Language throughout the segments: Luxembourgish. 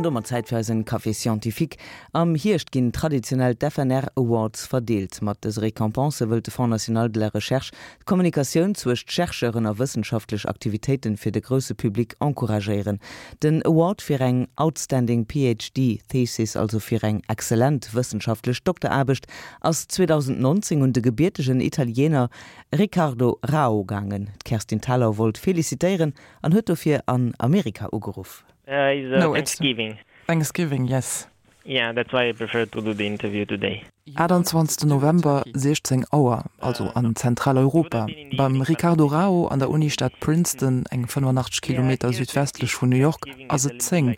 An domat Zäit fir eisen Café Scientifique. Am Hierscht ginn traditionell d'FNR Awards verdeelt. Mat dëse Récompense wëllt de Fonds National de la Recherche d'Kommunikatioun zwëscht Chercheuren a wëssenschaftlech Aktivitéiten fir de grousse Public encouragéieren. Den Award fir eng Outstanding PhD Thesis, also fir eng exzellent wëssenschaftlech Dokteraarbecht, ass 2019 un de gebiertegen Italiener Riccardo Rao gaangen. D'Kerstin Thalau wollt felicitéieren an huet dofir an Amerika ugeruff. Uh, it's uh, no, Thanksgiving. It's Thanksgiving, yes. Yeah, that's why I prefer to do the interview today. 28 November, 16 Auer, also an Zentraleuropa, beim Riccardo Rao an der Unistad Princeton, eng 85 Kilometer südwestlech vun New York, ass et 10.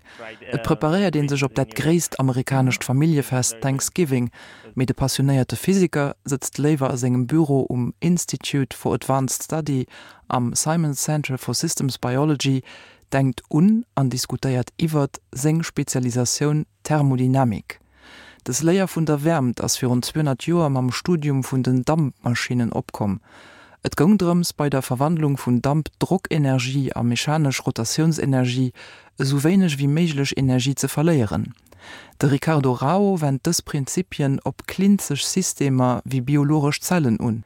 Et preparéiert ee sech op dat gréisst amerikanescht Familljefest Thanksgiving, mee de passionéierte Physiker sëtzt léiwer a sengem Büro um Institute for Advanced Study am Simons Center for Systems Biology, denkt un an diskutéiert iwwert seng Spezialisatioun Thermodynamik. Dës Léier vun der Wäermt ass virun 200 Joer mam Studium vun den Dampmaschinnen opkomm. Et goung drëms, bei der Verwandlung vun Damp Drockenergie a mechanesch Rotatiounsenergie esou wéineg wéi méiglech Energie ze verléieren. De Riccardo Rao wennt dës Prinzipien op klinzeg Systemer wéi biologesch Zellen un.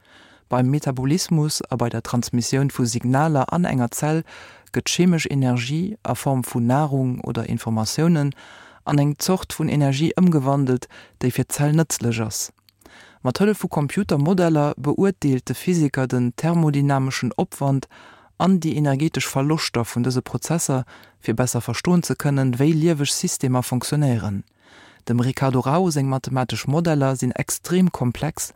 Beim Metabolismus a bei der Transmissioun vu Signaler an enger Zell gëtt chemesch Energie, a Form vun Narung oder Informatiounen, an eng Zort vun Energie ëmgewandelt, déi fir d'Zell nëtzlech ass. Mat Hëllef vu Computermodeller beurteelt de Physiker den thermodynameschen Opwand an déi energetesch Verloschter vun dëse Prozesser, fir besser verstoen ze kënnen, wéi lieweg Systemer fonctionnéieren. Dem Riccardo Rao seng mathematesch Modeller sinn extrem komplex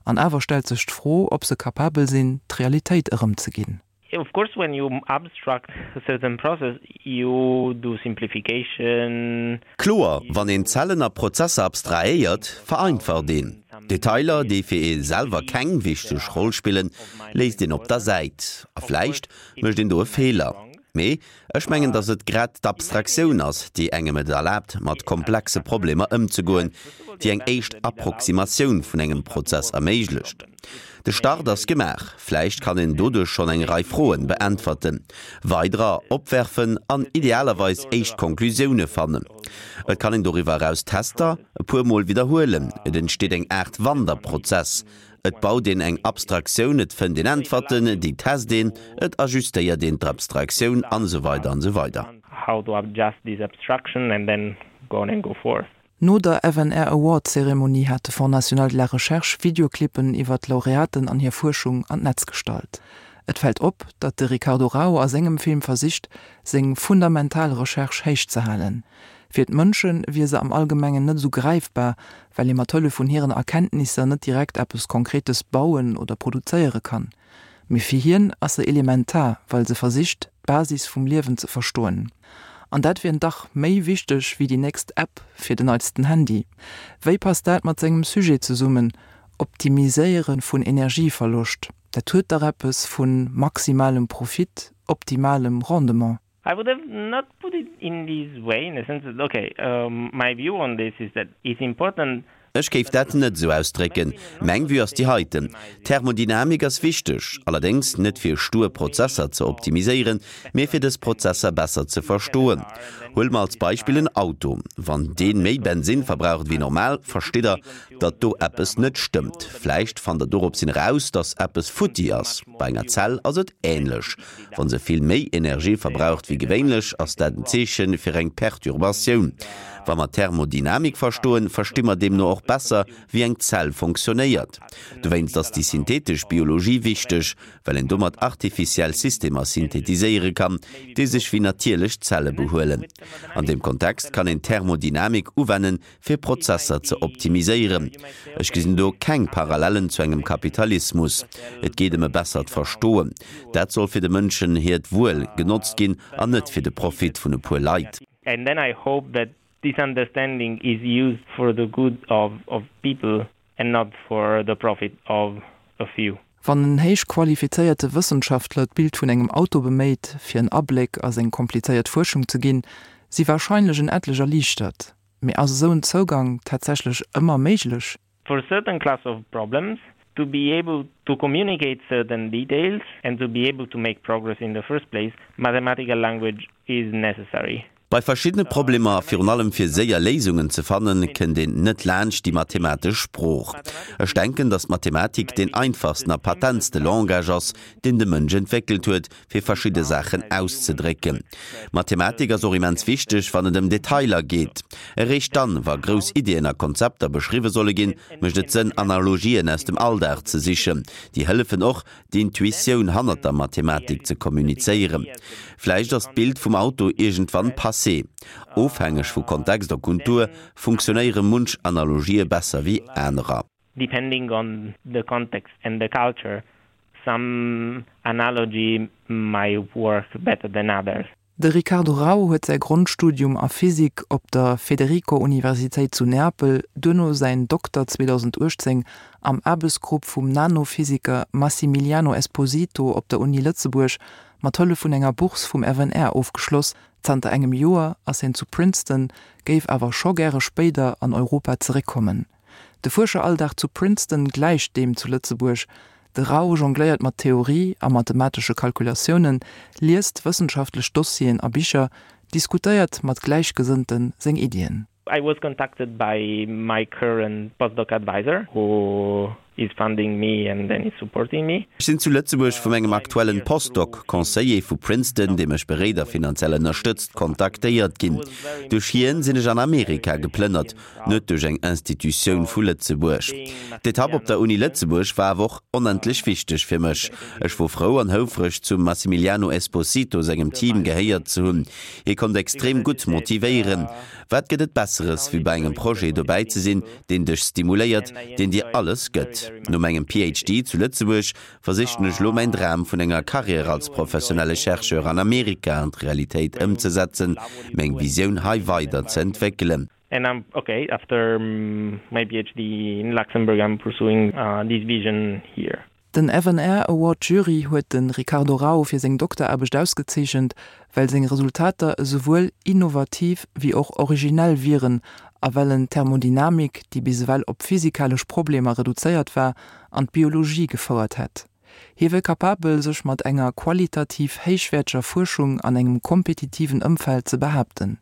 an awer stellt sech d'Fro, ob se kapabel sinn, d'Realitéit erëmzeginn. Of course when you abstract a certain process you do simplification. Kloer, wann een Zellen a Prozesser abstrahéiert, vereinfacht een. Detailer, déi fir ee selwer keng wichteg Roll spillen, léisst een op der Säit. A vläicht mécht een do e Feeler. Mee Ech mengen, datt et grad d'Abstraktioun ass, déi engem et erlaabt, mat komplexe Problemer ëmzegoen, déi eng éischt Approximatioun vun engem Prozess erméiglecht. De Start ass gemaach. Vläicht kann een doduerch schonn eng Rei Froen beäntwerten, weiderer opwerfen an idealerweis éischt Konklusioune fannen. Et kann een doriwwer eraus Tester e puer Mol widderhuelen. Et entsteet eng Aart Wanderprozess, Et baut een eng Abstraktioun, et fënnt een Äntwerten, déi test een, et ajustéiert een d'Abstraktioun an esou weider an esou weider. How to adjust this abstraction and then go on and go forth. No der FNR Award Zeremonie hat de Fonds National de la Recherche Videoclippen iwwer d'Laureaten an hir Fuerschung an d'Netz gestallt. Et fält op, datt de Riccardo Rao a sengem Film versicht, seng fundamental Recherche héich ze halen. Fir d'Mënsche wier se am Allgemengen net esou gräifbar, well ee mat Hëllef vun hiren Erkenntnisser net direkt eppes Konkretes bauen oder produzéiere kann. Mee fir hien ass se elementar, well se versicht, d'Basis vum Liewen ze verstoen. An dat wier dach méi wichteg wéi déi nächst App fir den neitsten Handy. Wéi passt dat mat sengem Sujet zesummen, Optimiséiere vun Energieverloscht? Dat huet dach eppes vu maximalem Profit, optimalem Rendement. I would have not put it in this way, in the sense that, okay, my view on this is that it's important. Ech géif dat net esou ausdrécken. Meng Vue ass déi heiten, Thermodynamik ass wichteg, allerdéngs net fir stur Prozesser ze optimiséieren, mee fir dës Prozesser besser ze verstoen. Huele mer als Beispill en Auto. Wann dee méi Bensinn verbraucht wéi normal, verstitt Der, datt do eppes net stëmmt. Vläicht fannt Der doropshin eraus, datt eppes futti ass. Bei enger Zell ass et änlech. Wa se vill méi Energie verbraucht wéi gewéinlech, ass dat en Zeeche fir eng Perturbatioun. Wa mer Thermodynamik verstoen, versti mer deemno och besser, wéi eng Zell fonctionnéiert. Dowéinst ass déi synthetesch Biologie wichteg, well een domat artificiell Systemer synthetiséiere kann, déi sech wéi natierlech Zelle behuelen. An deem Kontext kann een Thermodynamik uwennen, fir Prozesser ze optimiséieren. Ech gesinn do keng Parallellen zu engem Kapitalismus. Et geet ëm e bessert Verstoen. Dat soll fir de Mënschen hiert Wuel genotzt ginn an net fir de Profit vun e puer Leit. And then I hope that this understanding is used for the good of of people and not for the profit of a few. Wann en héich qualifizéierte Wëssenschaftler d'Bild vun engem Auto beméit, fir en Abléck a seng komplizéiert Fuerschung ze ginn, si warscheinlech en etlech erliichtert. Mee ass esou en Zougang tatsächlech ëmmer méiglech? For certain class of problems, to be able to communicate certain details and to be able to make progress in the first place, mathematical language is necessary. Bei verschiddene Problemer, a virun allem fir séier Léisungen ze fannen, kënnt een net laanscht déi mathematesch Sprooch. Ech denken, datt d'Mathematik deen einfachsten a patentste Langage ass, deen de Mënsch entwéckelt huet, fir verschidde Saachen auszedrécken. Mathematik ass och immens wichteg, wann et ëm Detailer geet. Eréischt dann, wa grouss Iddien a Konzepter beschriwwe solle ginn, mécht et Sënn, Analogien aus dem Alldag ze sichen. Déi hëllefen och, d'Intuitioun hannert der Mathematik ze kommunizéieren. Vläicht ass d'Bild vum Auto iergendwann passé. Ofhängeg vu Kontext a Kultur funktionéiere munch Analogië besser wéi anerer. Depending on the context and the culture, some analogy might work better than others. De Riccardo Rau huet säi Grondstudium a Physik op der Federico-Universitéit zu Neapel, duerno säin Dokter 2018 am Aarbechtsgrupp vum Nanophysiker Massimiliano Esposito op der Uni Lëtzebuerg mat Hëllef vun enger Bourse vum FNR ofgeschloss. Zanter engem Joer ass hien zu Princeton, géif awer scho gäre spéider an Europa zeréckkommen. De Fuerscheralldag zu Princeton gläicht deem zu Lëtzebuerg. De Rau jongléiert mat Theorie a mathematesche Kalkulatiounen, liest wëssenschaftlech Dossieren a Bicher, diskutéiert mat Gläichgesënnte seng Iddien. I was contacted by my current postdoc advisor who is funding me and then is supporting me. Ech sinn zu Lëtzebuerg vu mengem aktuellen Postdoc, Conseiller vu Princeton, dee mech beréit a finanziell ënnerstëtzt, kontaktéiert ginn. Duerch hien sinn ech an Amerika geplënnert, net duerch eng Institutioun vu Lëtzebuerg. D'Etapp op der Uni Lëtzebuerg war awer och onendlech wichteg fir mech. Ech wor frou an houfreg, zum Massimiliano Esposito sengem Team gehéiert ze hunn. Hie konnt extrem gutt motivéieren. Wat gëtt et Besseres, wéi bei engem Projet dobäi ze sinn, deen dech stimuléiert, deen dir alles gëtt? No mengem PhD zu Lëtzebuerg versichen ech elo mäin Dram vun enger Carrière als professionelle Chercheur an Amerika an d'Realitéit ëmzesetzen, meng Visioun hei weider ze entwéckelen. And I'm okay, after my PhD in Luxembourg I'm pursuing this vision here. Den FNR Award Jury huet de Ricardo Rau fir seng Dokteraarbecht ausgezeechent, well seng Resultater esouwuel innovativ wéi och originell wieren a well en d'Thermodynamik, déi bis ewell op physikalesch Problemer reduzéiert war, an d'Biologie gefouert hätt. Hie wier capabel, sech mat enger qualitativ héichwäerteger Fuerschung an engem kompetitiven Ëmfeld ze behaapten.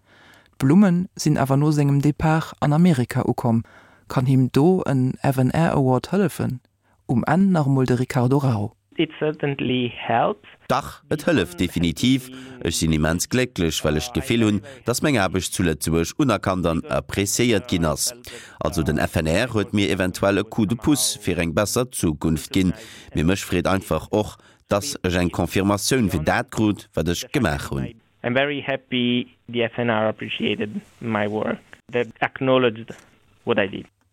D'Blumme sinn awer no sengem Depart an Amerika ukomm. Kann him do en FNR Award hëllefen? Um Enn nach emol de Ricardo Rau. It certainly helps. Dach, et hëlleft definitiv. Ech sinn immens glécklech, well ech d'Gefill hunn, dass meng Aarbecht zu Lëtzebuerg unerkannt an appreciéiert ginn ass. Also den FNR huet mir eventuell e Coup de pouce fir eng besser Zukunft ginn. Mee mech freet einfach och, dass ech eng Confirmatioun fir dat krut, wat ech gemaach hunn. I'm very happy the FNR appreciated my work, that acknowledged what I did.